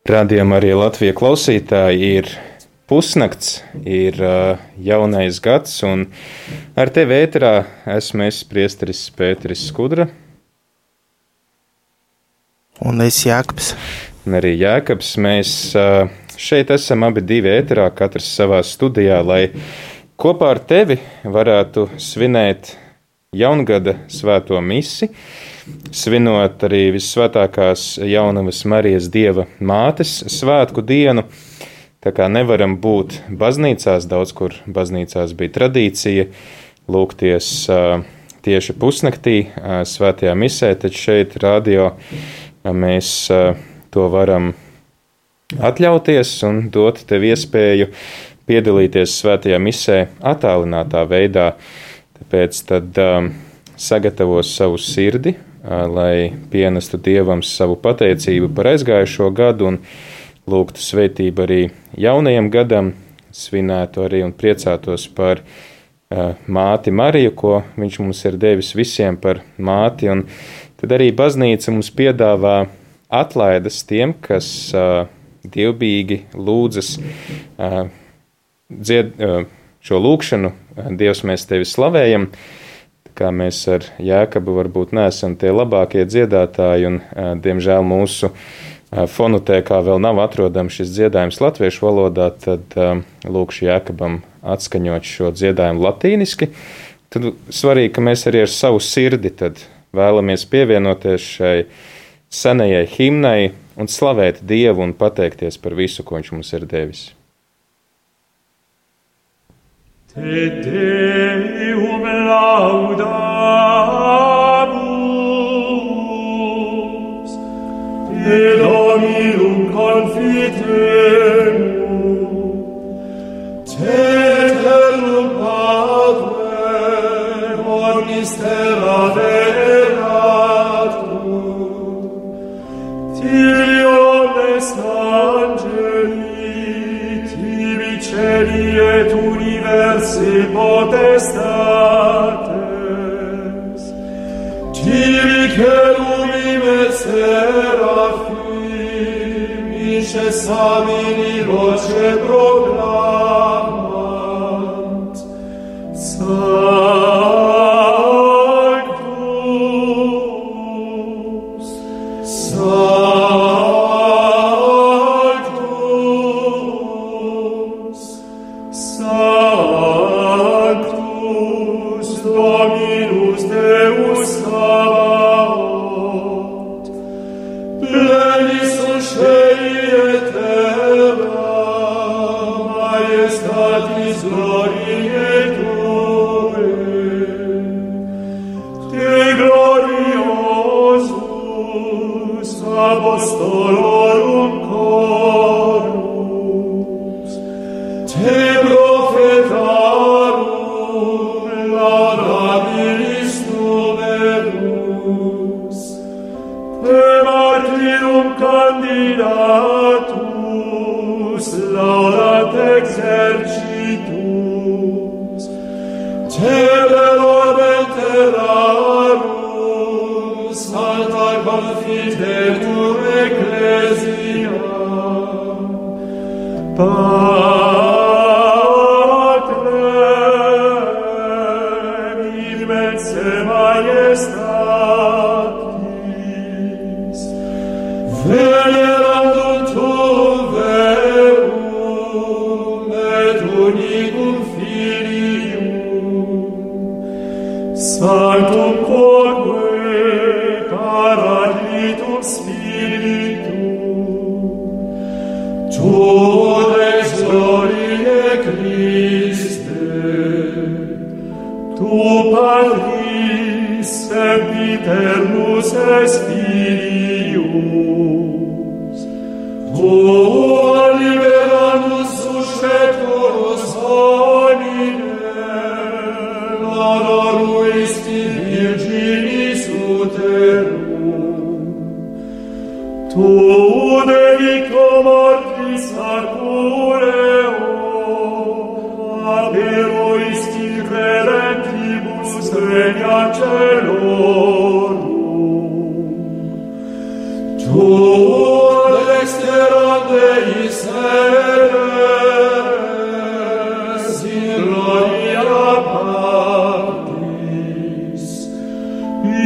Radījumā arī Latvijas klausītāji ir pusnakts, ir jaunais gads, un ar tevi ēterā esmu es, priesteris Pēteris Skudra. Un es Jākabs. Un arī Jākabs. Mēs šeit esam abi divi ēterā, katrs savā studijā, lai kopā ar tevi varētu svinēt jaungada svēto misi, svinot arī Vissvētākās Jaunavas Marijas Dieva mātes svētku dienu. Tā kā nevaram būt baznīcās, daudz kur baznīcās bija tradīcija lūgties tieši pusnaktī svētajā misē, taču šeit radio mēs to varam atļauties un dot tev iespēju piedalīties svētajā misē attālinātā veidā. Tāpēc tad sagatavo savu sirdi, lai pienestu Dievam savu pateicību par aizgājušo gadu un lūgtu svētību arī jaunajam gadam, svinētu arī un priecātos par māti Mariju, ko viņš mums ir devis visiem par māti. Un tad arī baznīca mums piedāvā atlaides tiem, kas dievbijīgi lūdzas šo lūkšanu. Dievs, mēs tevi slavējam. Kā mēs ar Jākabu varbūt neesam tie labākie dziedātāji, un diemžēl mūsu fonotēkā vēl nav atrodams šis dziedājums latviešu valodā, tad lūkšu Jākabam atskaņot šo dziedājumu latīniski. Tad svarīgi, ka mēs arī ar savu sirdi tad vēlamies pievienoties šai senajai himnai un slavēt Dievu un pateikties par visu, ko viņš mums ir devis. Te Deum laudamus, te Dominum confitemur, te eternum Patrem omnis terra veratur, tibi omnes angeli, tibi celi et universi potestates, tibi cherubim et seraphim, incessamini voce proclamant, Sanctus, Sanctus, Sanctus, Dominus Deus Sabaoth, plenis cei et terra, majestatis gloriae Tue, Te gloriosus apostolorum chorus, Te prophetarum laudabilis numerus, Te martyrum candidatus laudat exercitus, Te velorem terrarum salta confitetur ecclesia, Patrem immense majestatis, venerandum tuum verum et unicum Filium, sanctum quoque paraclitum Spiritum, tu ex gloriae Christe, tu Patris sempiternus Spirius, tu liberandus susceptorus hominem, honoruisti Virginis uterum, tu dedico mortis arcureo, aperoisti credentibus regna celorum, tu dexteram Deis eres in gloria Patris,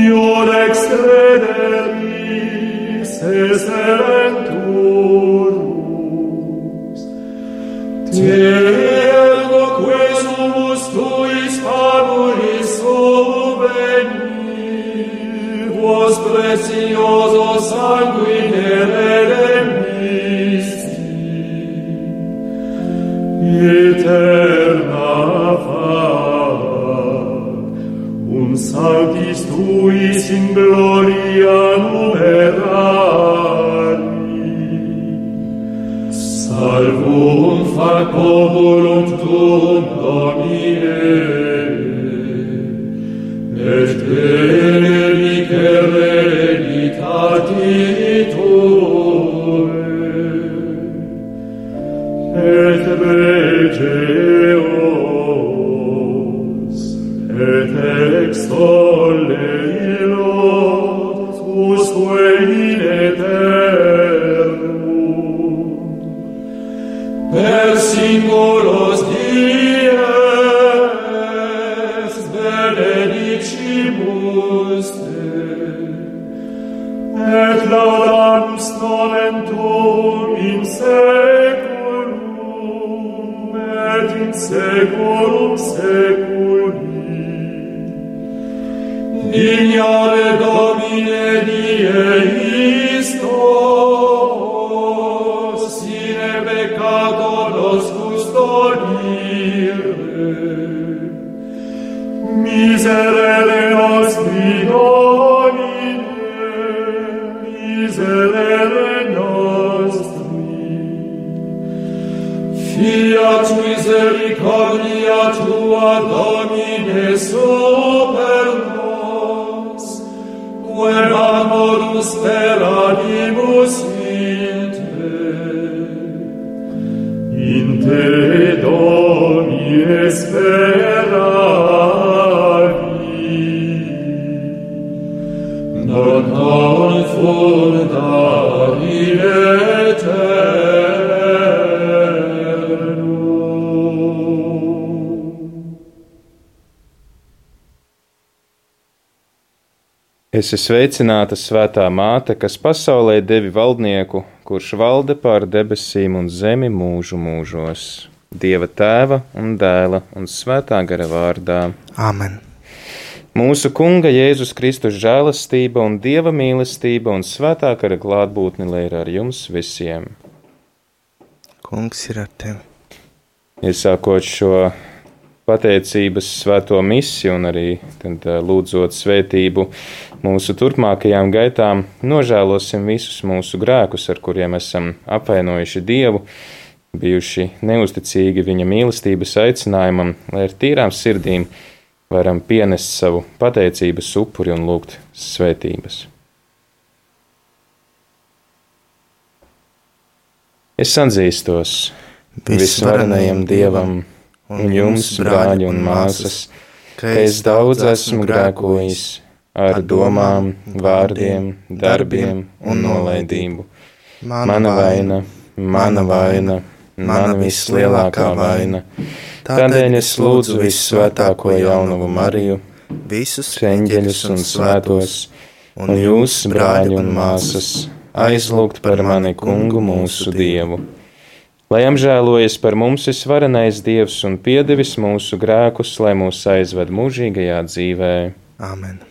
iod extrederis eserenturus, te ergo quesumus tuis fabulis subveni, vos precioso sanguine redemisti, eterna fac, sanctis tuis in gloria numerari, salvum fac populum tuum Domine, et benedice hereditati tuae, et begeos, et extolle illot usque in eternum, per singulos dies benedicimus te, et laudamus nomen tuum in seculum, et in seculum seculi. Dignare Domine die istos, sine peccato nos custodire, miserere nostri Domine, miserere nostri, fiat misericordia tua Domine super nos, quem amorus per animus in te Domine speravi, non confunda in Esi sveicināta, svētā māte, kas pasaulē devi valdnieku, kurš valda pār debesīm un zemi mūžu mūžos. Dieva Tēva un Dēla un Svētā gara vārdā. Āmen. Mūsu Kunga Jēzus Kristus žēlastība un Dieva mīlestība un Svētā gara klātbūtne lai ir ar jums visiem. Kungs ir ar tevi. Iesākot šo pateicības svēto misiju un arī tad, lūdzot svētību mūsu turpmākajām gaitām, nožēlosim visus mūsu grēkus, ar kuriem esam apvainojuši Dievu, bijuši neusticīgi viņa mīlestības aicinājumam, lai ar tīrām sirdīm varam pienest savu pateicības upuri un lūgt svētības. Es atzīstos visvarenajam Dievam un jums, brāļi un māsas, ka es daudz esmu grēkojis ar domām, vārdiem, darbiem un nolaidību. Mana vaina, mana vislielākā vaina. Tādēļ es lūdzu vissvētāko jaunavu Mariju, Visus eņģeļus un svētos, un jūs, brāļi un māsas, aizlūgt par mani Kungu mūsu Dievu. Lai apžēlojas par mums visvarenais Dievs un piedevis mūsu grēkus, lai mūs aizved mūžīgajā dzīvē. Āmen.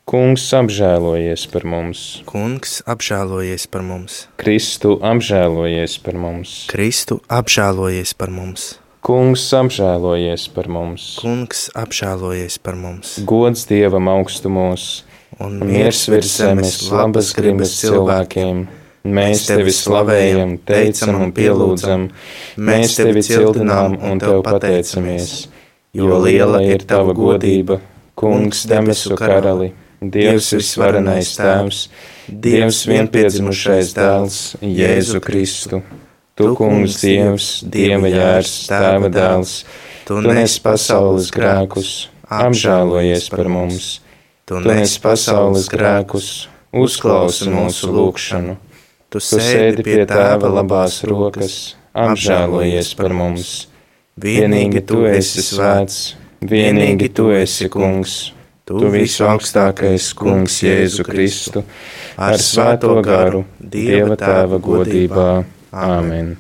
Kungs apžēlojies par mums. Kungs apžēlojies par mums. Kristu apžēlojies par mums. Kristu apžēlojies par mums. Kungs apžēlojies par mums. Kungs apžēlojies par mums. Gods Dievam augstumos un miers virs zemes labas gribas cilvēkiem. Mēs tevi slavējam, teicam un pielūdzam, mēs tevi cildinām un tev pateicamies, jo liela ir tava godība, Kungs debesu karali, Dievs visvarenais Tēvs, Dievs vienpiedzimušais Dēls, Jēzu Kristu. Tu, Kungs Dievs, Dieva Jērs, Tēva Dēls, tu nes pasaules grēkus, apžēlojies par mums, tu nes pasaules grēkus, uzklausi mūsu lūgšanu. Tu sēdi pie Tēva labās rokas, apžēlojies par mums. Vienīgi Tu esi svēts, vienīgi Tu esi kungs. Tu visu augstākais kungs Jēzu Kristu, ar svēto garu, Dieva Tēva godībā. Āmen.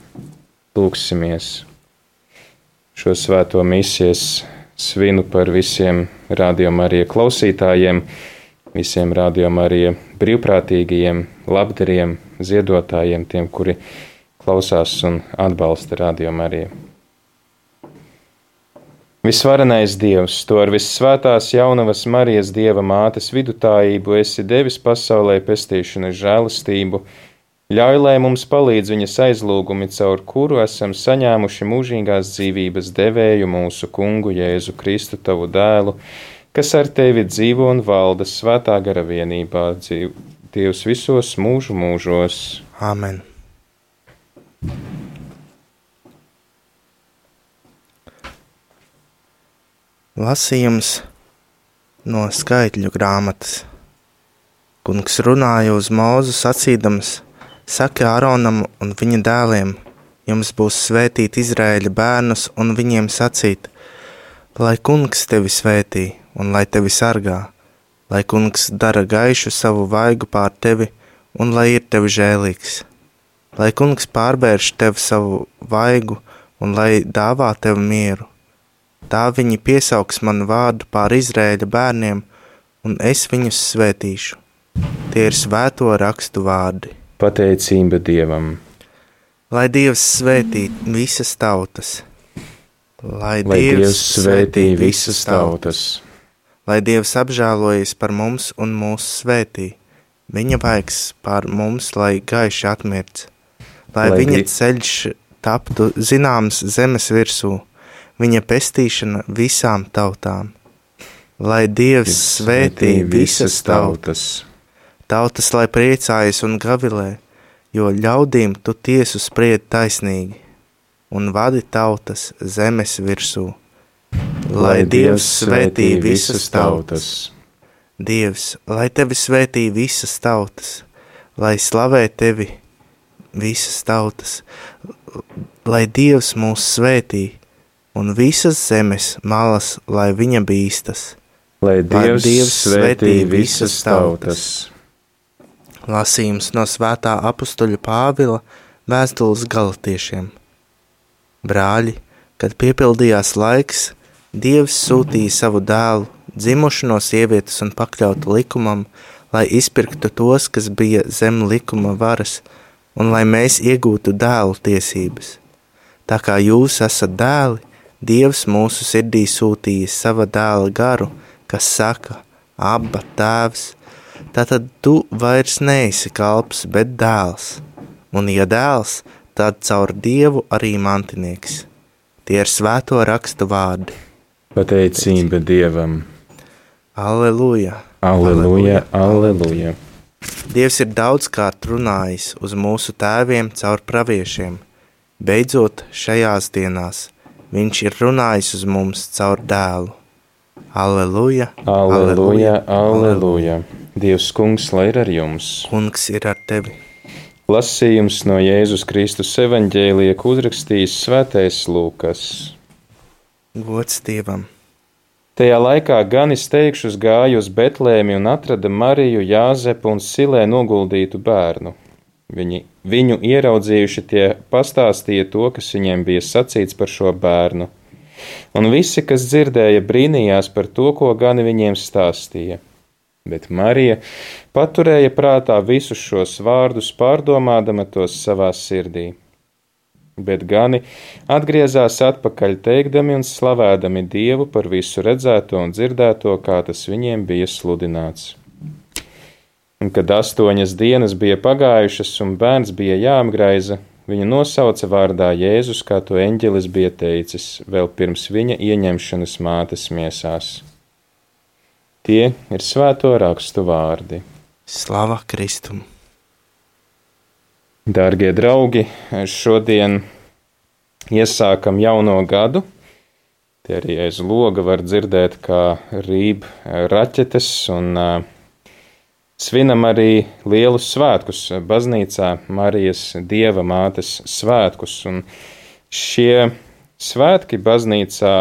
Lūksimies. Šo svēto misijas svinu par visiem Radio Marija klausītājiem, visiem Radio Marija brīvprātīgajiem, labdariem, ziedotājiem, tiem, kuri klausās un atbalsta Radio Mariju. Visvarenais Dievs, Tu ar vissvētās jaunavas Marijas Dieva mātes vidutājību esi devis pasaulē pestīšanas žēlastību, ļauj, lai mums palīdz viņas aizlūgumi, caur kuru esam saņēmuši mūžīgās dzīvības devēju mūsu kungu Jēzu Kristu, Tavu dēlu, kas ar Tevi dzīvo un valda svētā gara vienībā, Dievs visos mūžu mūžos. Āmen. Lasījums no Skaitļu grāmatas. Kungs runāja uz Mūzu sacīdams: Saki Āronam un viņa dēliem, jums būs svētīt Izraēļa bērnus un viņiem sacīt: Lai Kungs tevi svētī un lai tevi sargā, lai Kungs dara gaišu savu vaigu pār tevi un lai ir tevi žēlīgs, lai Kungs pārbērš tev savu vaigu un lai dāvā tev mieru. Tā viņi piesauks manu vārdu pār Izraēļa bērniem, un es viņus svētīšu. Tie ir svēto rakstu vārdi. Pateicība Dievam. Lai Dievs svētī visas tautas. Lai Dievs svētī visas tautas. Lai Dievs apžēlojas par mums un mūs svētī. Viņa vaigs pār mums, lai gaiši atmirts. Lai viņa ceļš taptu zināms zemes virsū. Viņa pestīšana visām tautām. Lai Dievs svētī visas tautas. Tautas, lai priecājas un gavilē, jo ļaudīm Tu tiesu spried taisnīgi, un vadi tautas zemes virsū. Lai Dievs svētī visas tautas. Dievs, lai Tevi svētī visas tautas, lai slavē Tevi visas tautas, lai Dievs mūs svētī, un visas zemes malas, lai viņa bīstas. Lai Dievs svētī visas tautas. Lasījums no svētā apustuļa Pāvila vēstules Galatiešiem. Brāļi, kad piepildījās laiks, Dievs sūtīja savu dēlu, dzimušu no sievietes un pakļautu likumam, lai izpirktu tos, kas bija zem likuma varas, un lai mēs iegūtu dēlu tiesības. Tā kā jūs esat dēli, Dievs mūsu sirdī sūtīja sava dēla garu, kas saka: Abba, Tēvs. Tātad tu vairs neesi kalps, bet dēls. Un ja dēls, tad caur Dievu arī mantinieks. Tie ir svēto rakstu vārdi. Pateicība Dievam. Alleluja. Alleluja, alleluja. Dievs ir daudzkārt runājis uz mūsu tēviem caur praviešiem. Beidzot, šajās dienās Viņš ir runājis uz mums caur dēlu. Alleluja, alleluja, alleluja. Dievs kungs, lai ir ar jums. Kungs ir ar tevi. Lasījums no Jēzus Kristus evaņģēlija, ko uzrakstījis svētais Lūkas. Gods Dievam. Tajā laikā gan izteikšus gāja uz Betlēmi un atrada Mariju, Jāzepu un Silē noguldītu bērnu. Viņu ieraudzījuši, tie pastāstīja to, kas viņiem bija sacīts par šo bērnu. Un visi, kas dzirdēja, brīnījās par to, ko gani viņiem stāstīja. Bet Marija paturēja prātā visus šos vārdus, pārdomādama tos savā sirdī. Bet gani atgriezās atpakaļ teikdami un slavēdami Dievu par visu redzēto un dzirdēto, kā tas viņiem bija sludināts. Un kad 8 dienas bija pagājušas un bērns bija jāapgraiza, viņu nosauca vārdā Jēzus, kā to eņģelis bija teicis, vēl pirms viņa ieņemšanas mātes miesās. Tie ir svēto rakstu vārdi. Slava Kristum! Dārgie draugi, šodien iesākam jauno gadu. Tie arī aiz loga var dzirdēt, kā rīb raķetes un svinam arī lielus svētkus baznīcā, Marijas Dieva mātes svētkus. Un šie svētki baznīcā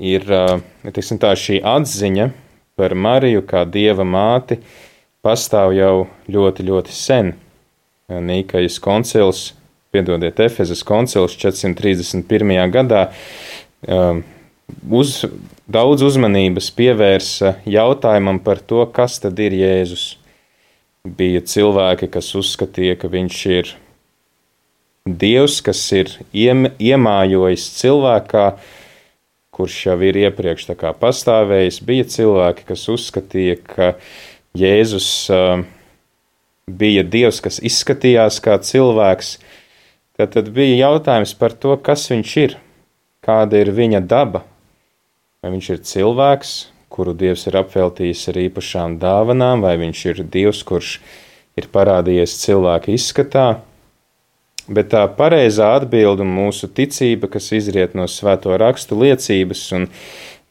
ir, teiksim tā, šī atziņa par Mariju kā Dieva māti pastāv jau ļoti, ļoti sen. Nīkajas koncils, Efezas koncils 431. gadā daudz uzmanības pievērsa jautājumam par to, kas tad ir Jēzus. Bija cilvēki, kas uzskatīja, ka viņš ir Dievs, kas ir iemājojis cilvēkā, kurš jau ir iepriekš tā kā pastāvējis. Bija cilvēki, kas uzskatīja, ka Jēzus bija Dievs, kas izskatījās kā cilvēks. Tad bija jautājums par to, kas viņš ir, kāda ir viņa daba. Vai viņš ir cilvēks, kuru Dievs ir apveltījis ar īpašām dāvanām, vai viņš ir Dievs, kurš ir parādījies cilvēka izskatā. Bet tā pareizā atbilde un mūsu ticība, kas izriet no svēto rakstu liecības un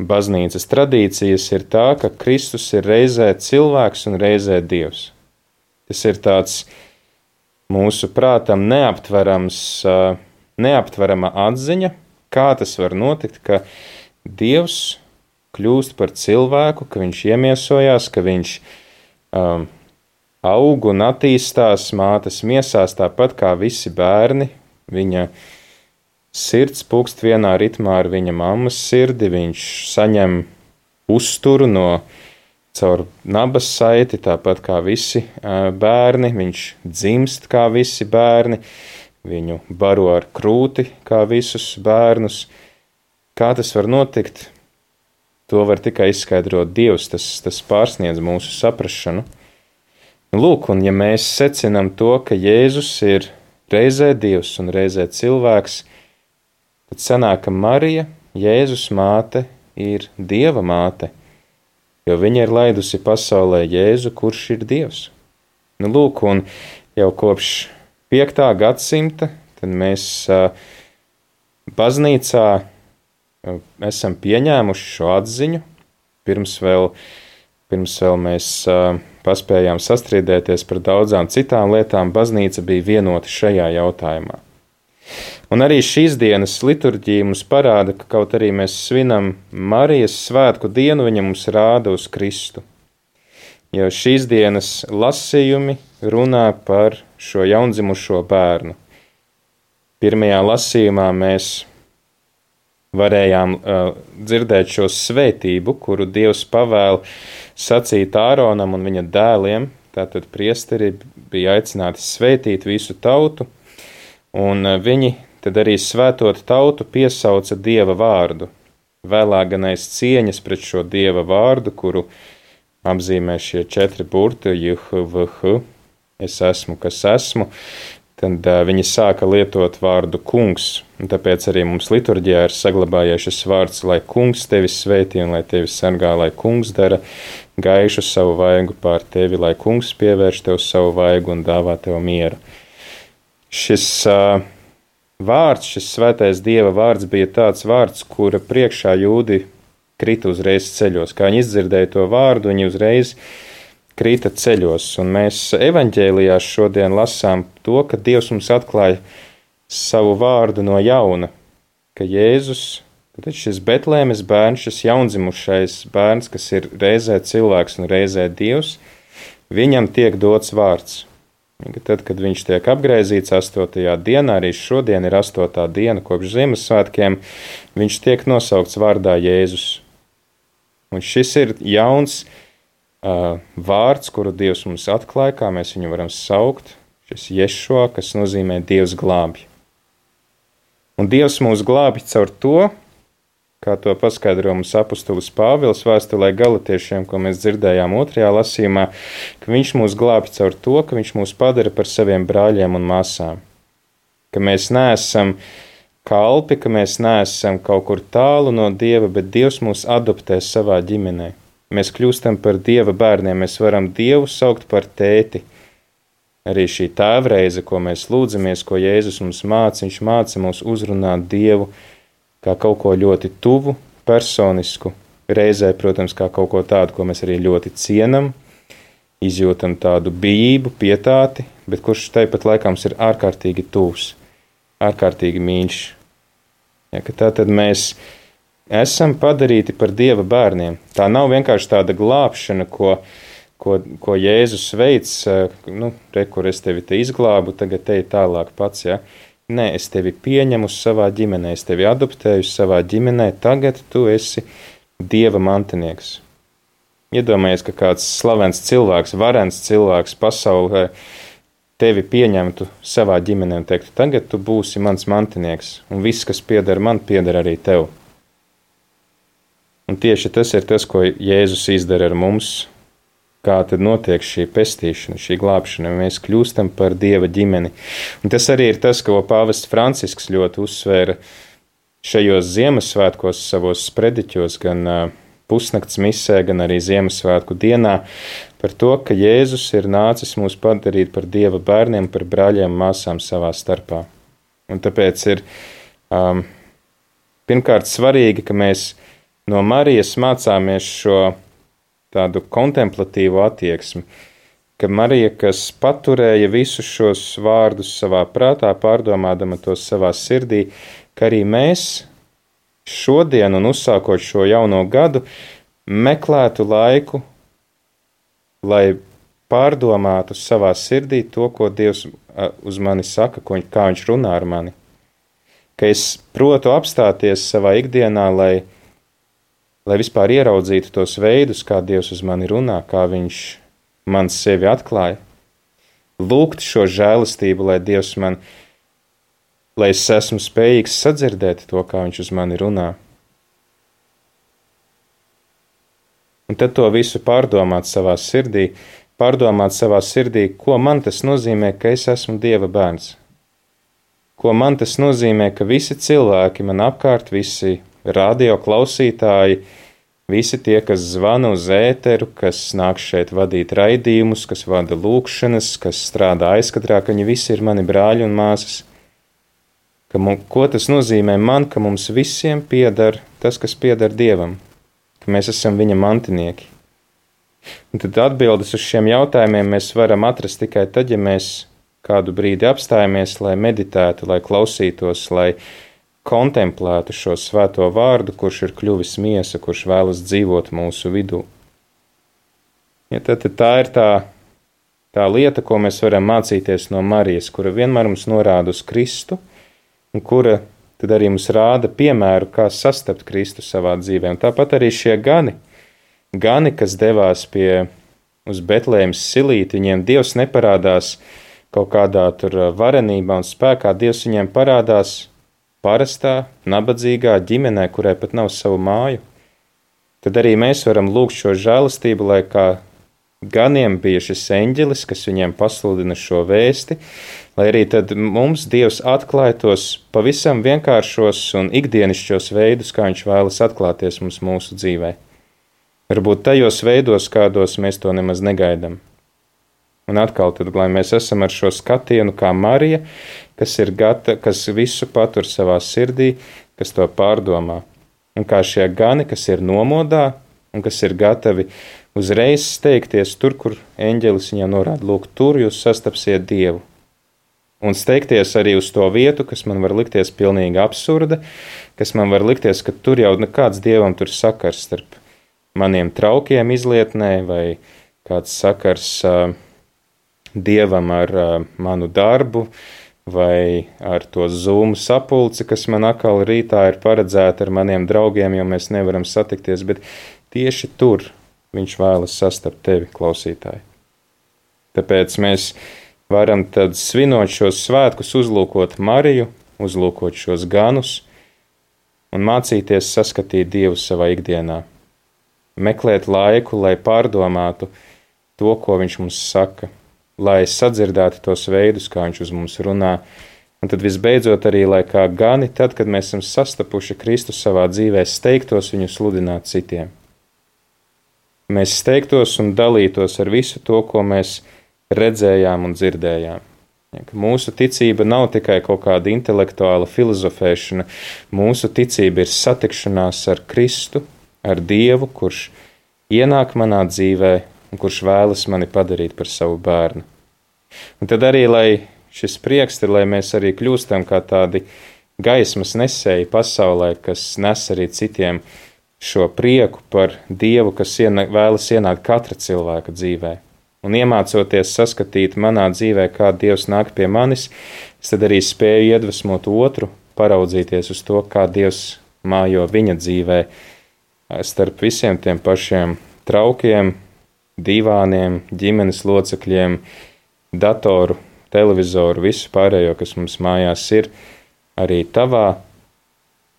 baznīcas tradīcijas, ir tā, ka Kristus ir reizē cilvēks un reizē Dievs. Tas ir tāds mūsu prātam neaptverama atziņa, kā tas var notikt, ka Dievs kļūst par cilvēku, ka viņš iemiesojās, ka viņš aug un attīstās mātes miesās tāpat kā visi bērni. Viņa sirds pukst vienā ritmā ar viņa mammas sirdi, viņš saņem uzturu caur nabas saiti, tāpat kā visi bērni, viņš dzimst kā visi bērni, viņu baro ar krūti kā visus bērnus. Kā tas var notikt? To var tikai izskaidrot Dievs, tas pārsniedz mūsu saprašanu. Lūk, un ja mēs secinām to, ka Jēzus ir reizē Dievs un reizē cilvēks, tad sanāk, ka Marija, Jēzus māte, ir Dieva māte, jo viņa ir laidusi pasaulē Jēzu, kurš ir Dievs. Lūk, un jau kopš 5. gadsimta tad mēs baznīcā esam pieņēmuši šo atziņu. Pirms vēl mēs paspējām sastrīdēties par daudzām citām lietām, baznīca bija vienota šajā jautājumā. Un arī šīs dienas liturģija mums parāda, ka kaut arī mēs svinam Marijas svētku dienu, viņa mums rāda uz Kristu. Jo šīs dienas lasījumi runā par šo jaundzimušo bērnu. Pirmajā lasījumā mēs varējām dzirdēt šo svētību, kuru Dievs pavēl sacīt Āronam un viņa dēliem. Tātad priesteri bija aicināti svētīt visu tautu, un viņi tad arī svētot tautu piesauca Dieva vārdu. Vēlāk gan aiz cieņas pret šo Dieva vārdu, kuru apzīmē šie 4 burti, JHVH, es esmu, kas esmu, tad viņi sāka lietot vārdu kungs. Un tāpēc arī mums liturģijā ir saglabājies šis vārds, lai kungs tevi svētī un lai tevi sargā, lai kungs dara gaišu savu vaigu pār tevi, lai kungs pievērš tev savu vaigu un dāvā tev mieru. Šis vārds, šis svētais Dieva vārds bija tāds vārds, kura priekšā jūdi krita uzreiz ceļos. Kā viņi izdzirdēja to vārdu, viņi uzreiz krita ceļos. Un mēs evaņģēlijās šodien lasām to, ka Dievs mums atklāja savu vārdu no jauna, ka Jēzus, tad šis Betlēmes bērns, šis jaundzimušais bērns, kas ir reizē cilvēks un reizē Dievs, viņam tiek dots vārds. Tad, kad viņš tiek apgraizīts 8. dienā, arī šodien ir 8. diena kopš Ziemassvētkiem, viņš tiek nosaukts vārdā Jēzus. Un šis ir jauns vārds, kuru Dievs mums atklāja, kā mēs viņu varam saukt, šis Ješua, kas nozīmē Dievs glābj. Un Dievs mūs glābj caur to, kā to paskaidro mums apustulis Pāvils vēstulē Galatiešiem, ko mēs dzirdējām 2. lasījumā, ka viņš mūs glābj caur to, ka viņš mūs padara par saviem brāļiem un māsām. Ka mēs neesam kalpi, ka mēs neesam kaut kur tālu no Dieva, bet Dievs mūs adoptē savā ģimenē. Mēs kļūstam par Dieva bērniem, mēs varam Dievu saukt par tēti. Arī šī tēvreize, ko mēs lūdzamies, ko Jēzus mums māca, viņš māca mūs uzrunāt Dievu kā kaut ko ļoti tuvu, personisku. reizē, protams, kā kaut ko tādu, ko mēs arī ļoti cienam, izjūtam tādu bijību, pietāti, bet kurš tāpat laikā mums ir ārkārtīgi tūs, ārkārtīgi mīļš. Ja, ka tātad mēs esam padarīti par Dieva bērniem. Tā nav vienkārši tāda glābšana, ko Jēzus veic, kur es tevi te izglābu, tagad te tālāk pats, ja. Nē, es tevi pieņemu savā ģimenē, es tevi adoptēju savā ģimenē, tagad tu esi Dieva mantinieks. Iedomājies, ka kāds slavens cilvēks, varens cilvēks pasaulē tevi pieņemtu savā ģimenē un teiktu, tagad tu būsi mans mantinieks, un viss, kas pieder man, pieder arī tev. Un tieši tas ir tas, ko Jēzus izdara ar mums, kā tad notiek šī pestīšana, šī glābšana, mēs kļūstam par Dieva ģimeni. Un tas arī ir tas, ko pāvests Francisks ļoti uzsvēra šajos Ziemassvētkos savos sprediķos, gan pusnakts misē, gan arī Ziemassvētku dienā, par to, ka Jēzus ir nācis mūs padarīt par Dieva bērniem, par brāļiem un māsām savā starpā. Un tāpēc ir pirmkārt svarīgi, ka mēs no Marijas mācāmies šo tādu kontemplatīvu attieksmi, ka Marija, kas paturēja visus šos vārdus savā prātā, pārdomādama tos savā sirdī, ka arī mēs šodien un uzsākot šo jauno gadu meklētu laiku, lai pārdomātu savā sirdī to, ko Dievs uz mani saka, kā viņš runā ar mani. Ka es protu apstāties savā ikdienā, lai vispār ieraudzītu tos veidus, kā Dievs uz mani runā, kā viņš man sevi atklāja. Lūgt šo žēlastību, lai Dievs lai es esmu spējīgs sadzirdēt to, kā viņš uz mani runā. Un tad to visu pārdomāt savā sirdī, ko man tas nozīmē, ka es esmu Dieva bērns. Ko man tas nozīmē, ka visi cilvēki man apkārt, visi radio klausītāji, visi tie, kas zvana uz ēteru, kas nāk šeit vadīt raidījumus, kas vada lūkšanas, kas strādā aizkadrā, ka viņi visi ir mani brāļi un māsas. Ko tas nozīmē man, ka mums visiem pieder tas, kas pieder Dievam, ka mēs esam viņa mantinieki. Un tad atbildes uz šiem jautājumiem mēs varam atrast tikai tad, ja mēs kādu brīdi apstājamies, lai meditētu, lai klausītos, lai kontemplētu šo svēto vārdu, kurš ir kļuvis miesa, kurš vēlas dzīvot mūsu vidū. Ja, tad tā ir tā lieta, ko mēs varam mācīties no Marijas, kura vienmēr mums norāda uz Kristu, un kura tad arī mums rāda piemēru, kā sastapt Kristu savā dzīvē. Un tāpat arī šie gani, kas devās uz Betlēmas silīti, viņiem Dievs neparādās kaut kādā tur varenībā un spēkā, Dievs viņiem parādās parastā, nabadzīgā ģimenē, kurai pat nav savu māju. Tad arī mēs varam lūgt šo žēlastību, lai kā ganiem bija šis eņģelis, kas viņiem pasludina šo vēsti, lai arī tad mums Dievs atklāj tos pavisam vienkāršos un ikdienišķos veidus, kā viņš vēlas atklāties mums mūsu dzīvē. Varbūt tajos veidos, kādos mēs to nemaz negaidām. Un atkal tad, lai mēs esam ar šo skatienu kā Marija, kas visu patur savā sirdī, kas to pārdomā. Un kā šie gani, kas ir nomodā un kas ir gatavi uzreiz steigties tur, kur eņģelis viņam norāda, lūk, tur jūs sastapsiet Dievu. Un steigties arī uz to vietu, kas man var likties pilnīgi absurda, kas man var likties, ka tur jau nekāds Dievam tur sakars starp maniem traukiem izlietnē vai kāds sakars Dievam ar manu darbu vai ar to Zoom sapulci, kas man atkal rītā ir paredzēta ar maniem draugiem, jo mēs nevaram satikties, bet tieši tur viņš vēlas sastapt tevi, klausītāji. Tāpēc mēs varam tad svinot šos svētkus, uzlūkot Mariju, uzlūkot šos ganus un mācīties saskatīt Dievu savā ikdienā. Meklēt laiku, lai pārdomātu to, ko viņš mums saka, lai sadzirdētu tos veidus, kā viņš uz mums runā, un tad visbeidzot arī, lai kā gani, tad, kad mēs esam sastapuši Kristu savā dzīvē, steigtos viņu sludināt citiem. Mēs steigtos un dalītos ar visu to, ko mēs redzējām un dzirdējām. Ja, mūsu ticība nav tikai kaut kāda intelektuāla filozofēšana, mūsu ticība ir satikšanās ar Kristu, ar Dievu, kurš ienāk manā dzīvē un kurš vēlas mani padarīt par savu bērnu. Un tad arī, lai šis prieks ir, lai mēs arī kļūstam kā tādi gaismas nesēji pasaulē, kas nes arī citiem šo prieku par Dievu, kas vēlas ienākt katra cilvēka dzīvē. Un iemācoties saskatīt manā dzīvē, kā Dievs nāk pie manis, es tad arī spēju iedvesmot otru, paraudzīties uz to, kā Dievs mājo viņa dzīvē, starp visiem tiem pašiem traukiem, divāniem, ģimenes locekļiem, datoru, televizoru, visu pārējo, kas mums mājās ir, arī tavā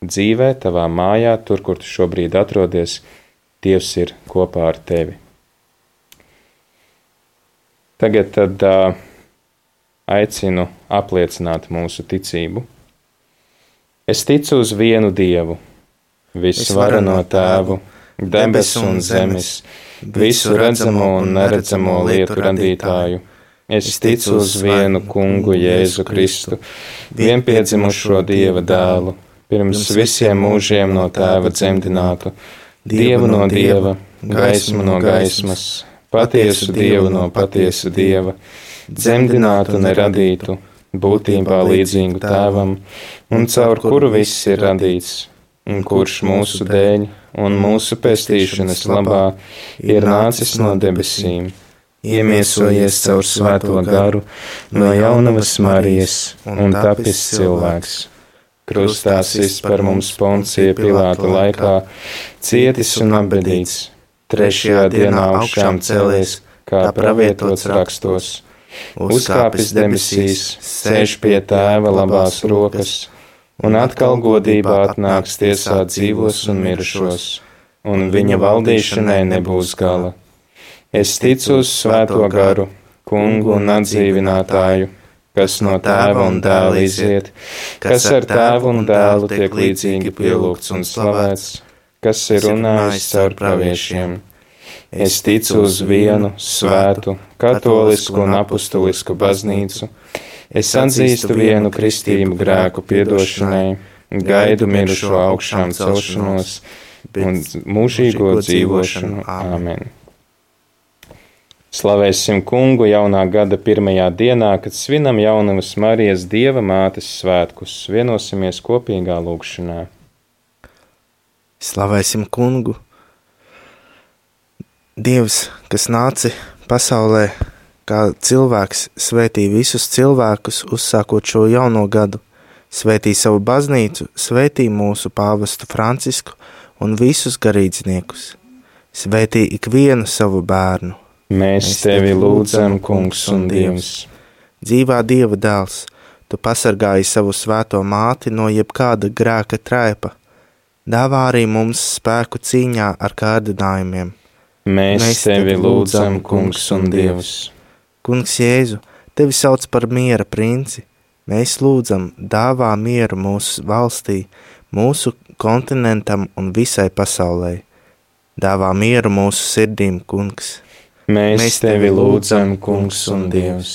dzīvē, tavā mājā, tur, kur tu šobrīd atrodies, Dievs ir kopā ar tevi. Tagad tad aicinu apliecināt mūsu ticību. Es ticu uz vienu Dievu, visvareno Tēvu, debesu un zemes, visu redzamo un neredzamo lietu radītāju. Es ticu uz vienu Kungu Jēzu Kristu, vienpiedzimušo Dieva dēlu, pirms visiem mūžiem no Tēva dzemdinātu, Dievu no Dieva, gaismu no gaismas, patiesu Dievu no patiesu Dieva, dzemdinātu neradītu, būtībā līdzīgu Tēvam, un caur kuru viss ir radīts, un kurš mūsu dēļ un mūsu pestīšanas labā ir nācis no debesīm, iemiesojies caur svēto garu no jaunavas Marijas un tapis cilvēks. Krustā sists par mums Poncija Pilāta laikā, cietis un apbedīts, trešajā dienā augšām cēlies, kā pravietots rakstos, uzkāpis debesīs, sēž pie Tēva labās rokas, un atkal godībā atnāks tiesāt dzīvos un mirušos, un viņa valdīšanai nebūs gala. Es ticu uz svēto garu, Kungu un atdzīvinātāju, kas no Tēva un Dēla iziet, kas ar Tēvu un Dēlu tiek līdzīgi pielūgts un slavēts, kas ir runājis caur praviešiem. Es ticu uz vienu, svētu, katolisku un apustulisku baznīcu. Es atzīstu vienu kristību grēku piedošanai, gaidu mirušo augšām celšanos un mūžīgo dzīvošanu. Āmen. Slavēsim Kungu jaunā gada pirmajā dienā, kad svinam jaunavas Marijas Dieva mātes svētkus. Vienosimies kopīgā lūgšanā. Slavēsim Kungu! Dievs, kas nāca pasaulē kā cilvēks, svētī visus cilvēkus, uzsākot šo jauno gadu, svētī savu baznīcu, svētī mūsu pāvestu Francisku un visus garīdzniekus, svētī ikvienu savu bērnu. Mēs tevi lūdzam, Kungs un Dievs. Dzīvā Dieva dēls, tu pasargāji savu svēto māti no jebkāda grēka traipa, dāvā arī mums spēku cīņā ar kārdinājumiem. Mēs tevi lūdzam, Kungs un Dievs. Kungs Jēzu, tevi sauc par miera princi. Mēs lūdzam, dāvā mieru mūsu valstī, mūsu kontinentam un visai pasaulē. Dāvā mieru mūsu sirdīm, Kungs. Mēs tevi lūdzam, Kungs un Dievs.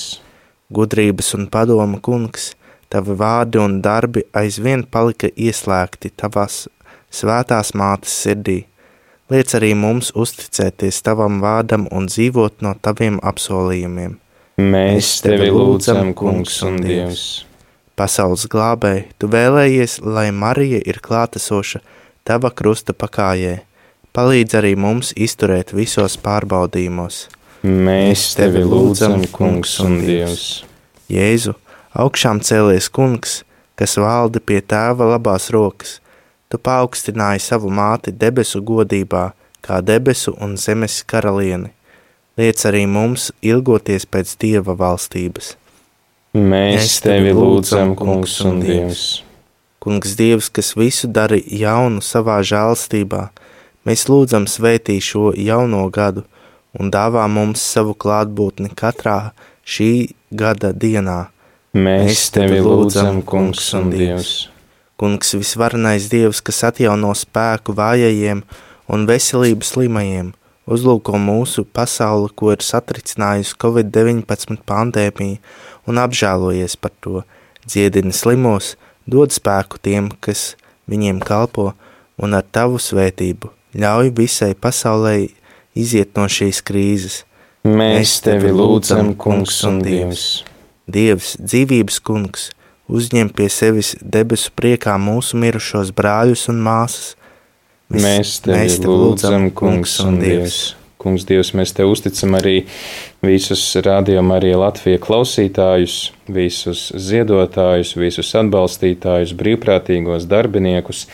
Gudrības un padoma, Kungs, tavi vārdi un darbi aizvien palika ieslēgti tavās svētās mātes sirdī. Liec arī mums uzticēties tavam vārdam un dzīvot no taviem apsolījumiem. Mēs tevi lūdzam, Kungs un Dievs. Pasaules glābēji, tu vēlējies, lai Marija ir klātesoša tava krusta pakājē. Palīdz arī mums izturēt visos pārbaudījumos. Mēs tevi lūdzam, Kungs un Dievs. Jēzu, augšām cēlies Kungs, kas valda pie Tēva labās rokas. Tu paaugstināji savu māti debesu godībā, kā debesu un zemes karalieni. Liec arī mums ilgoties pēc Dieva valstības. Mēs tevi lūdzam, Kungs un Dievs. Kungs Dievs, kas visu dara jaunu savā žēlstībā, mēs lūdzam svētī šo jauno gadu un dāvā mums savu klātbūtni katrā šī gada dienā. Mēs tevi lūdzam, Kungs un Dievs. Kungs visvarenais Dievs, kas atjauno spēku vājajiem un veselību slimajiem, uzlūko mūsu pasauli, ko ir satricinājusi Covid-19 pandēmija, un apžēlojies par to, dziedini slimos, dod spēku tiem, kas viņiem kalpo, un ar tavu svētību Ļauj visai pasaulē iziet no šīs krīzes. Mēs tevi lūdzam, Kungs un Dievs. Dievs, dzīvības Kungs, uzņem pie sevis debesu priekā mūsu mirušos brāļus un māsas. Mēs tevi lūdzam, Kungs un Dievs. Kungs, Dievs, mēs tev uzticam arī visus Radio Marija Latvija klausītājus, visus ziedotājus, visus atbalstītājus, brīvprātīgos darbiniekus,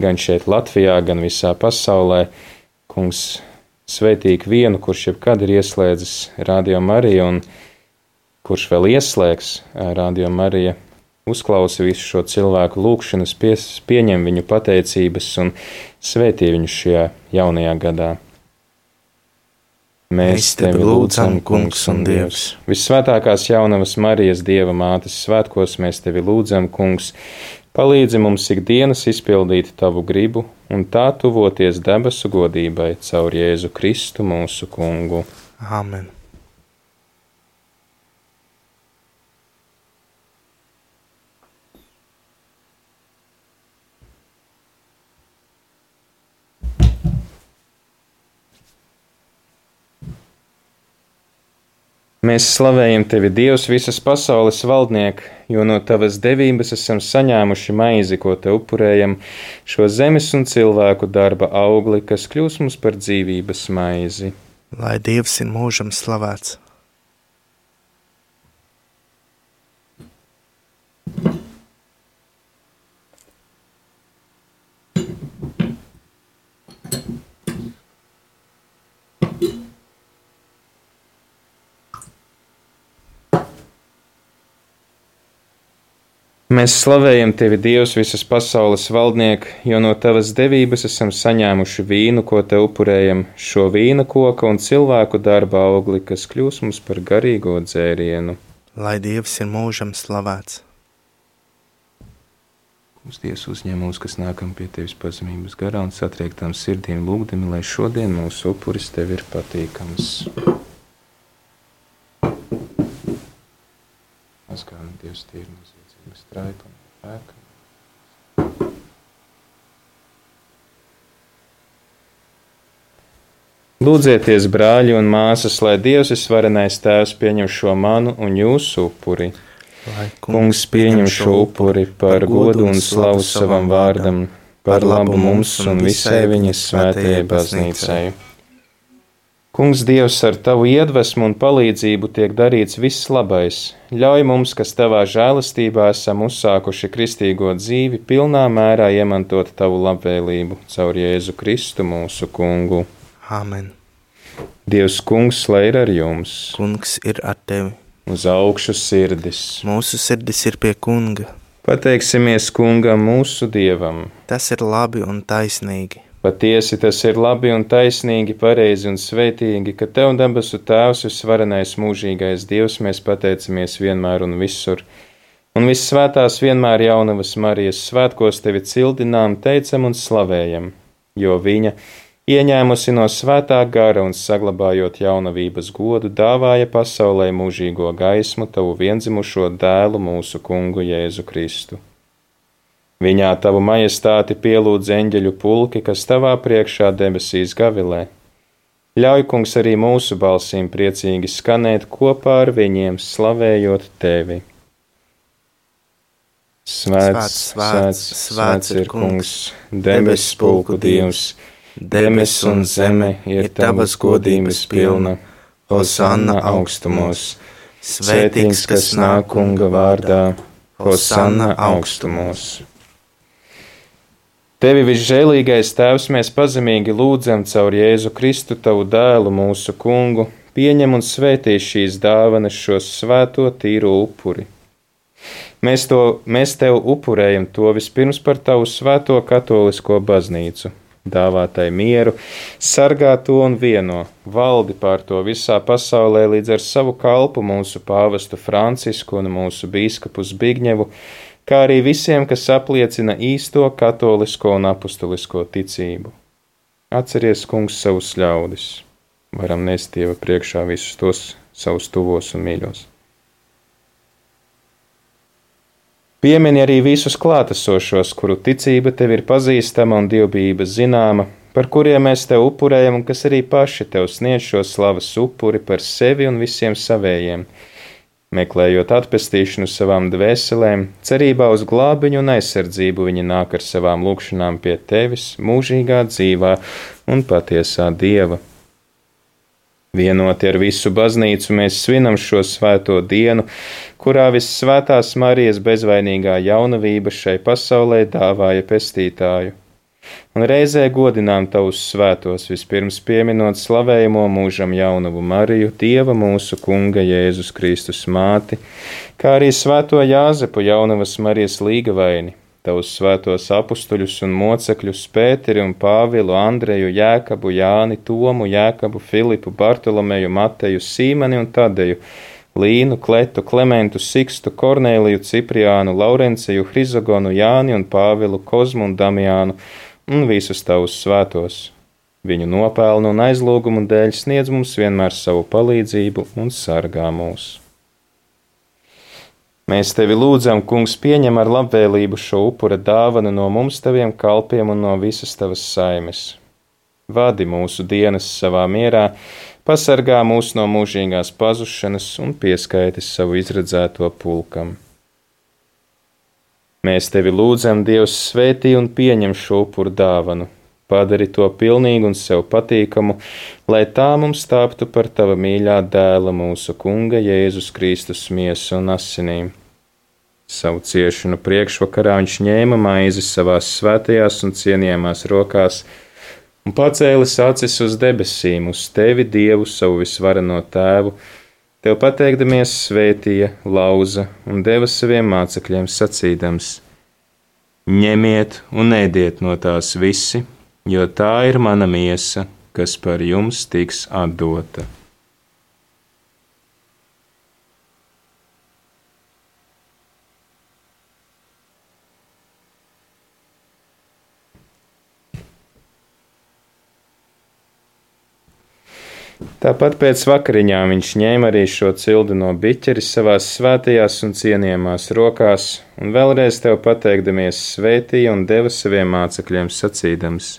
gan šeit Latvijā, gan visā pasaulē. Kungs, svētī vienu, kurš jebkad ir ieslēdzis Radio Mariju un kurš vēl ieslēgs Radio Marija, uzklausa visu šo cilvēku lūgšanas, pieņem viņu pateicības un svētī viņu šajā jaunajā gadā. Mēs tevi lūdzam, Kungs un Dievs. Vissvētākās jaunavas Marijas Dieva mātes svētkos mēs tevi lūdzam, Kungs, palīdzi mums ikdienas izpildīt tavu gribu un tā tuvoties debesu godībai caur Jēzu Kristu mūsu Kungu. Amen. Mēs slavējam tevi, Dievs, visas pasaules valdniek, jo no tavas devības esam saņēmuši maizi, ko te upurējam, šo zemes un cilvēku darba augli, kas kļūs mums par dzīvības maizi. Lai Dievs ir mūžam slavēts. Mēs slavējam tevi, Dievs, visas pasaules valdniek, jo no tavas devības esam saņēmuši vīnu, ko te upurējam, šo vīna koka un cilvēku darba augli, kas kļūs mums par garīgo dzērienu. Lai Dievs ir mūžam slavēts. Mums Dievs uzņem mūs, kas nākam pie tevis pazemības garā un satriektām sirdīm lūgdami, lai šodien mūsu upuris tev ir patīkams. Mazgāni Dievs tīri nozīmē. Straipa un pēka. Lūdzieties, brāļi un māsas, lai Dievs visvarenais Tēvs pieņem šo manu un jūsu upuri. Lai Kungs pieņem šo upuri par godu un slavu savam vārdam, par labu mums un visai viņas svētajai baznīcai. Kungs, Dievs, ar tavu iedvesmu un palīdzību tiek darīts viss labais. Ļauj mums, kas tavā žēlastībā esam uzsākuši kristīgo dzīvi, pilnā mērā iemantot tavu labvēlību caur Jēzu Kristu mūsu Kungu. Amen. Dievs, Kungs, lai ir ar jums. Kungs ir ar tevi. Uz augšu sirdis. Mūsu sirdis ir pie Kunga. Pateiksimies Kungam mūsu Dievam. Tas ir labi un taisnīgi. Patiesi tas ir labi un taisnīgi, pareizi un svētīgi, ka Tev debesu Tēvs visvarenais mūžīgais Dievs mēs pateicamies vienmēr un visur. Un vissvētās vienmēr jaunavas Marijas svētkos Tevi cildinām, teicam un slavējam, jo viņa, ieņēmusi no svētā gara un saglabājot jaunavības godu, dāvāja pasaulē mūžīgo gaismu Tavu viendzimušo dēlu mūsu Kungu Jēzu Kristu. Viņā Tavu majestāti pielūdz eņģeļu pulki, kas Tavā priekšā debesīs gavilē. Ļauj, Kungs, arī mūsu balsīm priecīgi skanēt kopā ar viņiem, slavējot Tevi. Svēts ir Kungs, debesu pulku Dievs, debes un zeme ir Tavas godības pilna, Hosanna augstumos, svētīgs, kas nāk Kunga vārdā, Hosanna augstumos. Tevi visžēlīgais Tēvs mēs pazemīgi lūdzam caur Jēzu Kristu, Tavu dēlu, mūsu Kungu, pieņem un svētī šīs dāvanas, šos svēto tīro upuri. Mēs Tev upurējam to vispirms par Tavu svēto katolisko baznīcu, dāvā tai mieru, sargā to un vieno, valdi pār to visā pasaulē līdz ar savu kalpu mūsu pāvestu Francisku un mūsu bīskapu Zbigņevu, kā arī visiem, kas apliecina īsto katolisko un apustulisko ticību. Atceries, Kungs, savus ļaudis. Varam nest Dieva priekšā visus tos savus tuvos un mīļos. Piemini arī visus klātesošos, kuru ticība Tev ir pazīstama un dievbijība zināma, par kuriem mēs tev upurējam un kas arī paši tev sniedz šo slavas upuri par sevi un visiem savējiem, meklējot atpestīšanu savām dvēselēm, cerībā uz glābiņu un aizsardzību viņi nāk ar savām lūgšanām pie tevis, mūžīgā dzīvā un patiesā Dieva. Vienoti ar visu baznīcu mēs svinam šo svēto dienu, kurā vissvētās Marijas bezvainīgā jaunavība šai pasaulē dāvāja pestītāju. Un reizē godinām tavus svētos, vispirms pieminot slavējamo mūžam jaunavu Mariju, Dieva mūsu Kunga Jēzus Kristus māti, kā arī svēto Jāzepu jaunavas Marijas līgavaini, tavus svētos apustuļus un mocekļus Pēteri un Pāvilu, Andreju, Jēkabu, Jāni, Tomu, Jēkabu, Filipu, Bartolomeju, Mateju, Sīmani un Tadeju, Līnu, Kletu, Klementu, Sikstu, Kornēliju, Cipriānu, Laurenciju, Hrizogonu, Jāni un Pāvilu, Kozmu un Damiānu un visus tavus svētos. Viņu nopelnu un aizlūgumu dēļ sniedz mums vienmēr savu palīdzību un sargā mūs. Mēs tevi lūdzam, Kungs, pieņem ar labvēlību šo upura dāvanu no mums taviem kalpiem un no visas tavas saimes. Vadi mūsu dienas savā mierā, pasargā mūs no mūžīgās pazušanas un pieskaiti savu izredzēto pulkam. Mēs tevi lūdzam, Dievs, svētī un pieņem šo upuru dāvanu, padari to pilnīgu un sev patīkamu, lai tā mums tāptu par tava mīļā dēla mūsu Kunga Jēzus Kristus miesu un asinīm. Savu ciešanu priekšvakarā viņš ņēma maizi savās svētajās un cienījamās rokās un pacēlis acis uz debesīm, uz tevi, Dievu, savu visvareno tēvu, tev pateikdamies svētīja, lauza un deva saviem mācekļiem sacīdams: ņemiet un ēdiet no tās visi, jo tā ir mana miesa, kas par jums tiks atdota. Tāpat pēc vakariņām viņš ņēma arī šo cildu no biķeri savās svētajās un cienījamās rokās, un vēlreiz tev pateikdamies svētīja un deva saviem mācekļiem sacīdams: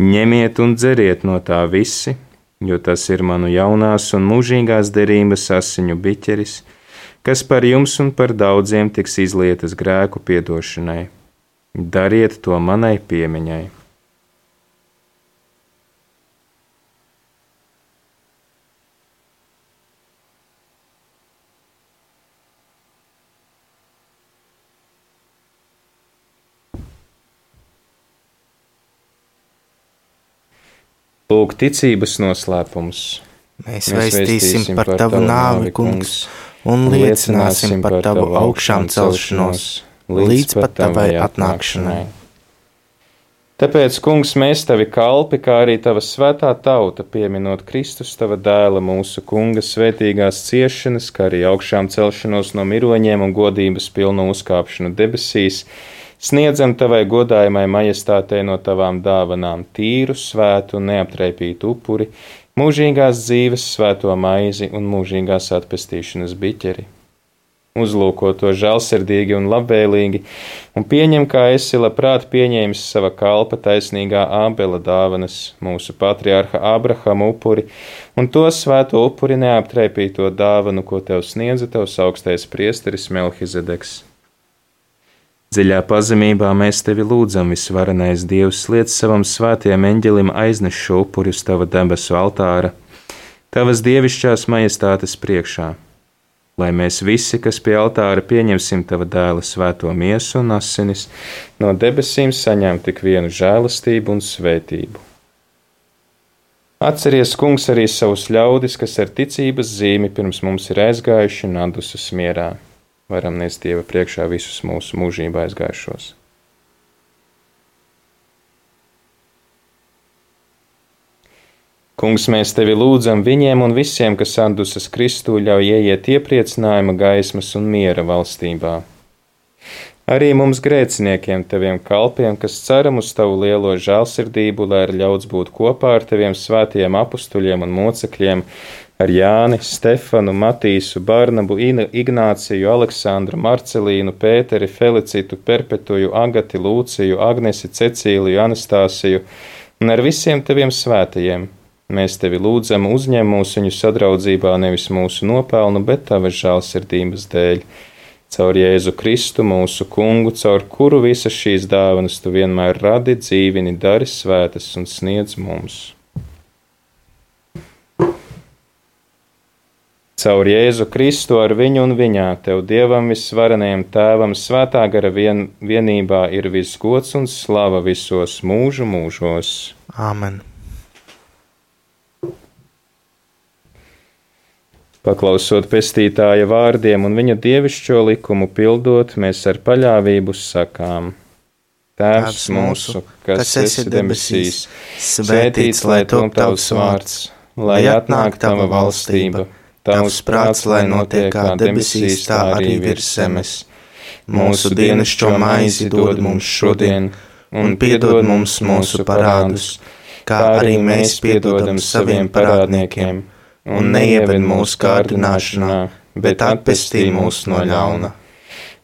ņemiet un dzeriet no tā visi, jo tas ir manu jaunās un mūžīgās derības asiņu biķeris, kas par jums un par daudziem tiks izlietas grēku piedošanai. Dariet to manai piemiņai. Lūk, ticības noslēpums. Mēs vēstīsim par tavu nāvi, Kungs, un liecināsim par tavu augšām celšanos, līdz pat tavai atnākšanai. Tāpēc, Kungs, mēs tavi kalpi, kā arī tava svētā tauta, pieminot Kristus tava dēla mūsu Kunga svētīgās ciešanas, kā arī augšām celšanos no miroņiem un godības pilnu uzkāpšanu debesīs, sniedzam tavai godājamai majestātei no tavām dāvanām tīru, svētu un neaptraipītu upuri, mūžīgās dzīves svēto maizi un mūžīgās atpestīšanas biķeri. Uzlūko to žēlsirdīgi un labvēlīgi, un pieņem, kā esi labprāt pieņēmis sava kalpa taisnīgā Ābela dāvanas, mūsu patriarha Ābrahama upuri, un to svēto upuri neaptraipīto dāvanu, ko tev sniedza tavs augstais priesteris Melhizedeks. Dziļā pazemībā mēs tevi lūdzam, visvarenais Dievs, liec savam svētajam eņģelim aizneš šo upuri uz tava debesu altāra, tavas dievišķās majestātes priekšā, lai mēs visi, kas pie altāra pieņemsim tava dēla svēto miesu un asinis, no debesīm saņem tik vienu žēlastību un svētību. Atceries, Kungs, arī savus ļaudis, kas ar ticības zīmi pirms mums ir aizgājuši un atdusas mierā. Varam nest Dieva priekšā visus mūsu mūžībā aizgājušos. Kungs, mēs tevi lūdzam viņiem un visiem, kas atdusas Kristū, ļauj ieiet iepriecinājuma gaismas un miera valstībā. Arī mums grēciniekiem, teviem kalpiem, kas ceram uz tavu lielo žēlsirdību, lai ir ļauts būt kopā ar teviem svētajiem apustuļiem un mocekļiem, ar Jāni, Stefanu, Matīsu, Barnabu, Ignāciju, Aleksandru, Marcelīnu, Pēteri, Felicitu, Perpetuju, Agati, Lūciju, Agnesi, Cecīliju, Anastāsiju un ar visiem teviem svētajiem. Mēs tevi lūdzam, uzņem mūs viņu sadraudzībā nevis mūsu nopelnu, bet tavas žēlsirdības dēļ. Caur Jēzu Kristu, mūsu kungu, caur kuru visas šīs dāvanas tu vienmēr radi, dzīvini, dari svētas un sniedz mums. Caur Jēzu Kristu ar viņu un viņā, tev Dievam visvarenajam Tēvam, svētā gara vienībā ir viss gods un slava visos mūžu mūžos. Āmen. Paklausot pestītāja vārdiem un viņa dievišķo likumu pildot, mēs ar paļāvību sakām: Tēvs mūsu, kas esi debesīs, svētīts lai top tavs vārds, lai atnāk tava valstība. Tavs prāts, lai notiek kā debesīs, tā arī virs zemes. Mūsu dienascho maizi dod mums šodien, un piedod mums mūsu parādus, kā arī mēs piedodam saviem parādniekiem, un neieved mūsu kārdināšanā, bet atpestī mūs no ļauna.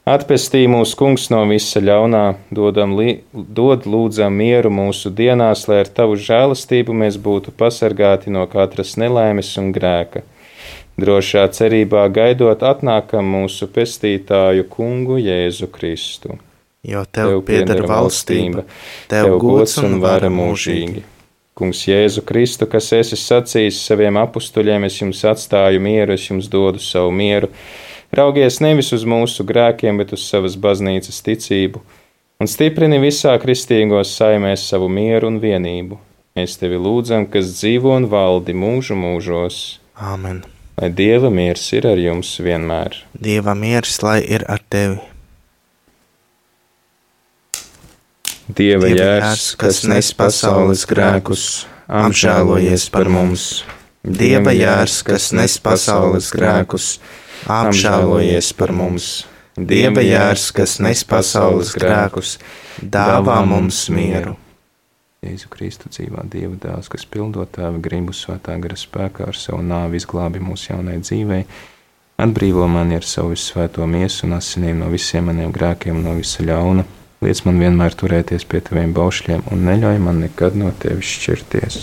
Atpestī mūs, Kungs, no visa ļaunā, dod lūdzam mieru mūsu dienās, lai ar tavu žēlastību mēs būtu pasargāti no katras nelaimes un grēka. Drošā cerībā gaidot atnākam mūsu pestītāju Kungu Jēzu Kristu. Jo tev pieder valstība, tev gods un vara mūžīgi. Kungs Jēzu Kristu, kas esi sacījis saviem apustuļiem, es jums atstāju mieru, es jums dodu savu mieru. Raugies nevis uz mūsu grēkiem, bet uz savas baznīcas ticību, un stiprini visā kristīgos saimēs savu mieru un vienību. Mēs tevi lūdzam, kas dzīvo un valdi mūžu mūžos. Āmen. Lai Dieva miers ir ar jums vienmēr. Dieva miers, lai ir ar tevi. Dieva jērs, kas nes pasaules grēkus, apžēlojies par mums. Dieva jērs, kas nes pasaules grēkus, apžēlojies par mums. Dieva jērs, kas nes pasaules grēkus, dāvā mums mieru. Jēzu Kristu dzīvā Dieva dēls, kas pildot Tēva gribu svētā gara spēkā ar savu nāvi izglābi mūsu jaunai dzīvei, atbrīvo mani ar savu visvēto miesu un asinīm no visiem maniem grēkiem un no visa ļauna, liec man vienmēr turēties pie Taviem baušļiem un neļauj man nekad no Tevis šķirties.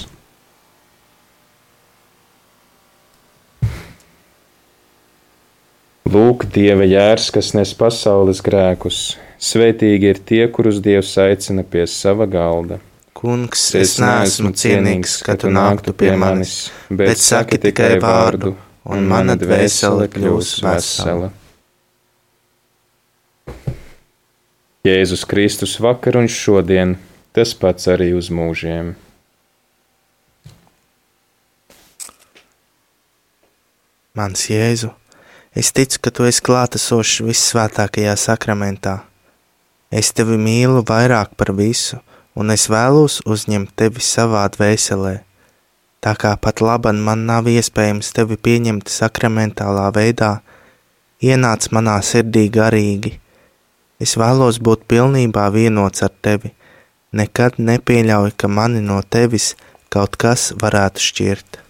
Lūk, Dieva jērs, kas nes pasaules grēkus, svētīgi ir tie, kurus Dievs aicina pie sava galda. Kungs, es neesmu cienīgs, ka tu nāktu pie manis, bet saki tikai vārdu, un mana dvēsele kļūs vesela. Jēzus Kristus vakar un šodien, tas pats arī uz mūžiem. Mans Jēzu, es ticu, ka tu esi klātesošs vissvētākajā sakramentā. Es tevi mīlu vairāk par visu, un es vēlos uzņemt tevi savā dvēselē. Tā kā pat laban man nav iespējams tevi pieņemt sakramentālā veidā, ienāc manā sirdī garīgi. Es vēlos būt pilnībā vienots ar tevi. Nekad nepieļauj, ka mani no tevis kaut kas varētu šķirt.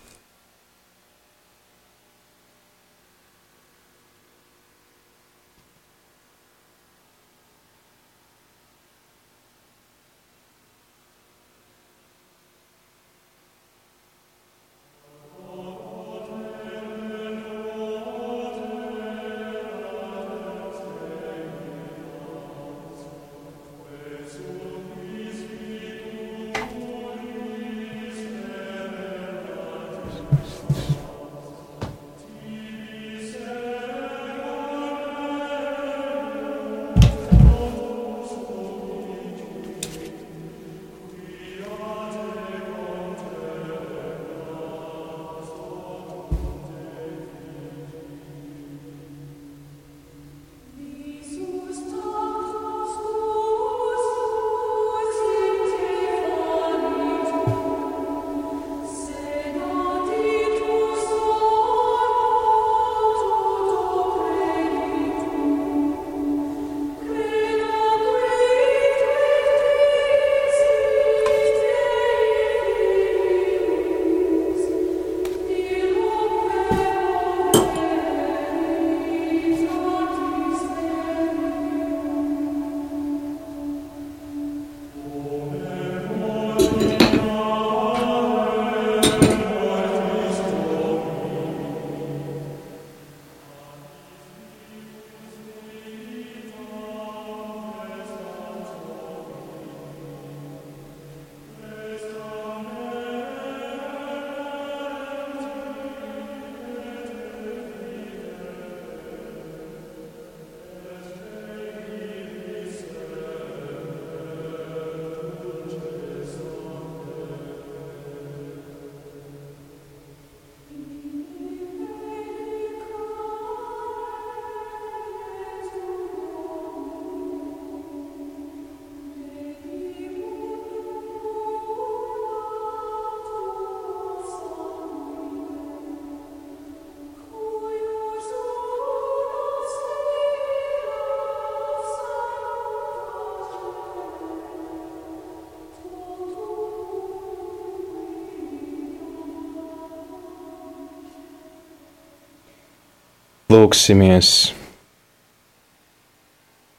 Lūksimies!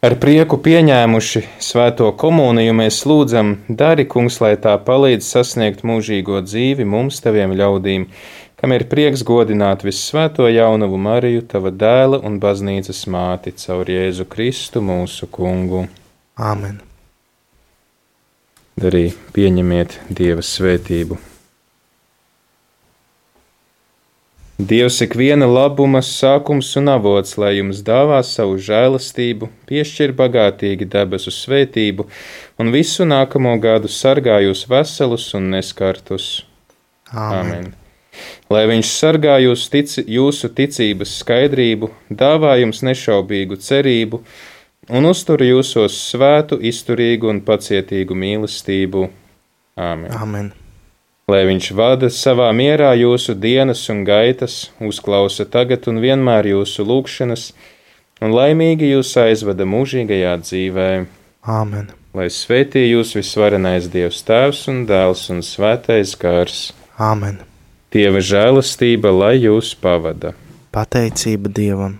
Ar prieku pieņēmuši svēto komuniju mēs lūdzam, dari, kungs, lai tā palīdz sasniegt mūžīgo dzīvi mums, taviem ļaudīm, kam ir prieks godināt vissvēto jaunavu Mariju, tava dēla un baznīcas māti, caur Jēzu Kristu mūsu kungu. Āmen. Arī pieņemiet Dieva svētību. Dievs ikviena labuma sākums un avots, lai jums dāvā savu žēlastību, piešķir bagātīgi debesu svētību un visu nākamo gadu sargā jūs veselus un neskartus. Āmen. Lai viņš sargā jūsu ticības skaidrību, dāvā jums nešaubīgu cerību un uztur jūsos svētu, izturīgu un pacietīgu mīlestību. Āmen. Āmen. Lai viņš vada savā mierā jūsu dienas un gaitas, uzklausa tagad un vienmēr jūsu lūgšanas, un laimīgi jūs aizvada mūžīgajā dzīvē. Āmen. Lai svētī jūs visvarenais Dievs Tēvs un Dēls un Svētais Gars. Āmen. Dieva žēlastība, lai jūs pavada. Pateicība Dievam.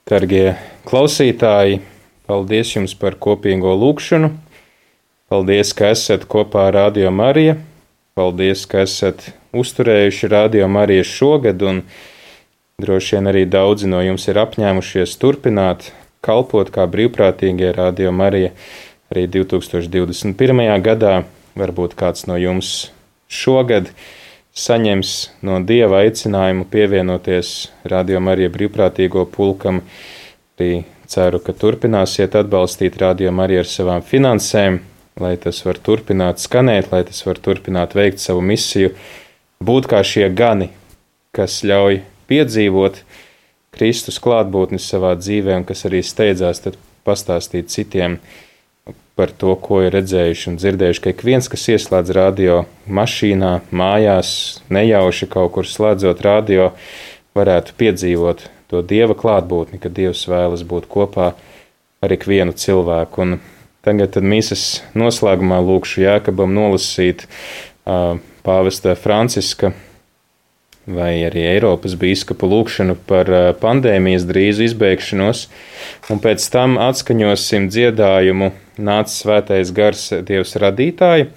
Dargie klausītāji, paldies jums par kopīgo lūgšanu. Paldies, ka esat kopā ar Radio Mariju. Paldies, ka esat uzturējuši Radio Mariju šogad, un droši vien arī daudzi no jums ir apņēmušies turpināt kalpot kā brīvprātīgie Radio Marija arī 2021. gadā. Varbūt kāds no jums šogad saņems no Dieva aicinājumu pievienoties Radio Marija brīvprātīgo pulkam. Arī ceru, ka turpināsiet atbalstīt Radio Mariju ar savām finansēm, lai tas var turpināt skanēt, lai tas var turpināt veikt savu misiju, būt kā šie gani, kas ļauj piedzīvot Kristus klātbūtni savā dzīvē un kas arī steidzās tad pastāstīt citiem par to, ko ir redzējuši un dzirdējuši, ka ik viens, kas ieslēdz radio mašīnā, mājās, nejauši kaut kur slēdzot radio, varētu piedzīvot to Dieva klātbūtni, ka Dievs vēlas būt kopā ar ikvienu cilvēku. Un tagad tad mīsas noslēgumā lūkšu Jēkabam nolasīt pāvesta Franciska vai arī Eiropas bīskapu lūkšanu par pandēmijas drīzu izbeigšanos, un pēc tam atskaņosim dziedājumu Nāc svētais gars Dievs radītāji.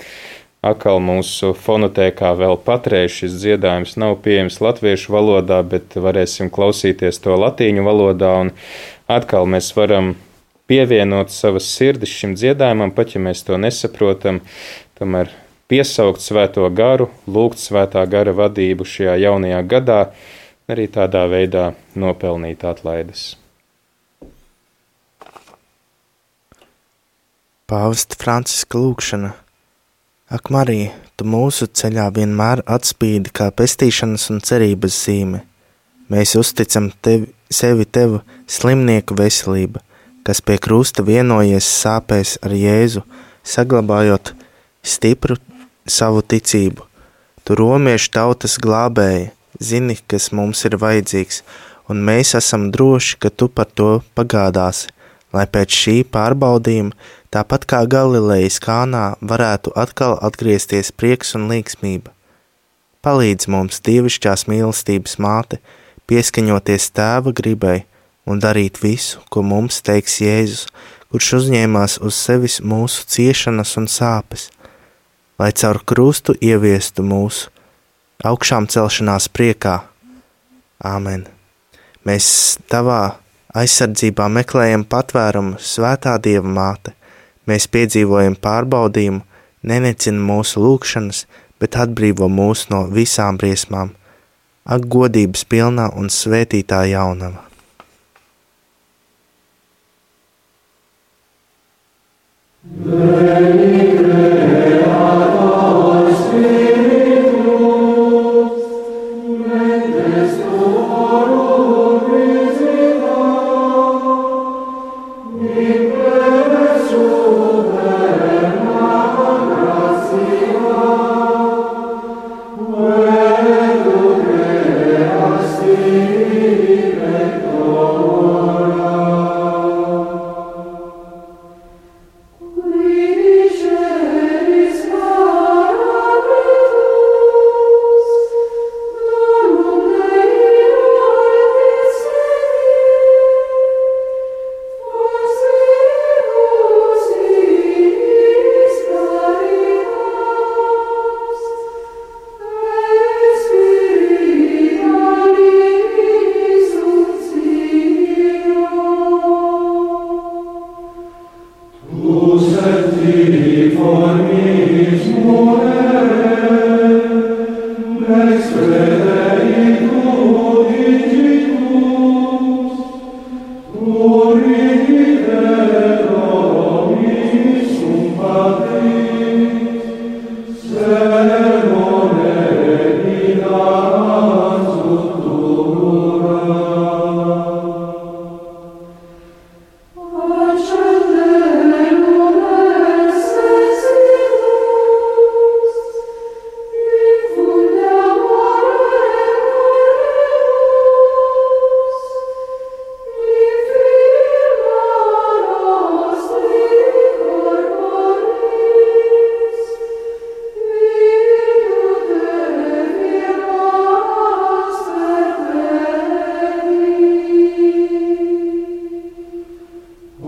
Atkal mūsu fonotēkā vēl patreiz šis dziedājums nav pieejams latviešu valodā, bet varēsim klausīties to latīņu valodā, un atkal mēs varam pievienot savas sirdis šim dziedājumam, pat ja mēs to nesaprotam, tomēr piesaukt svēto garu, lūgt svētā gara vadību šajā jaunajā gadā, arī tādā veidā nopelnīt atlaides. Pāvesta Franciska lūgšana. Ak, Marija, tu mūsu ceļā vienmēr atspīdi kā pestīšanas un cerības zīme. Mēs uzticam sevi tev slimnieku veselība, kas pie krusta vienojies sāpēs ar Jēzu, saglabājot stipru savu ticību. Tu romiešu tautas glābēji, zini, kas mums ir vajadzīgs, un mēs esam droši, ka tu par to pagādāsi, lai pēc šī pārbaudījuma, tāpat kā Galilejas Kānā, varētu atkal atgriezties prieks un līgsmība. Palīdz mums, dievišķās mīlestības māte, pieskaņoties tēva gribai, un darīt visu, ko mums teiks Jēzus, kurš uzņēmās uz sevis mūsu ciešanas un sāpes, lai caur krustu ieviestu mūsu augšām celšanās priekā. Āmen. Mēs tavā aizsardzībā meklējam patvērumu, svētā Dieva māte. Mēs piedzīvojam pārbaudījumu, nenecina mūsu lūgšanas, bet atbrīvo mūs no visām briesmām. Ak, godības pilnā un svētītā jaunava.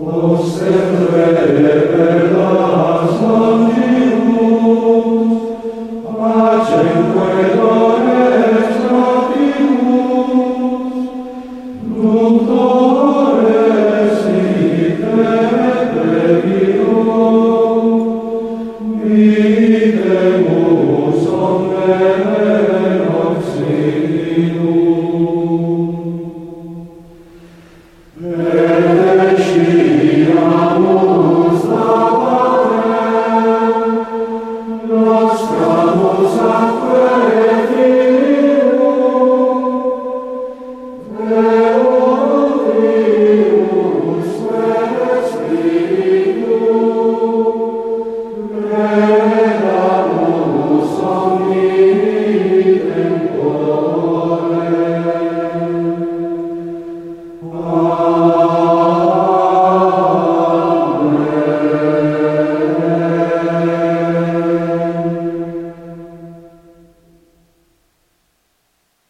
O sempre per las mangi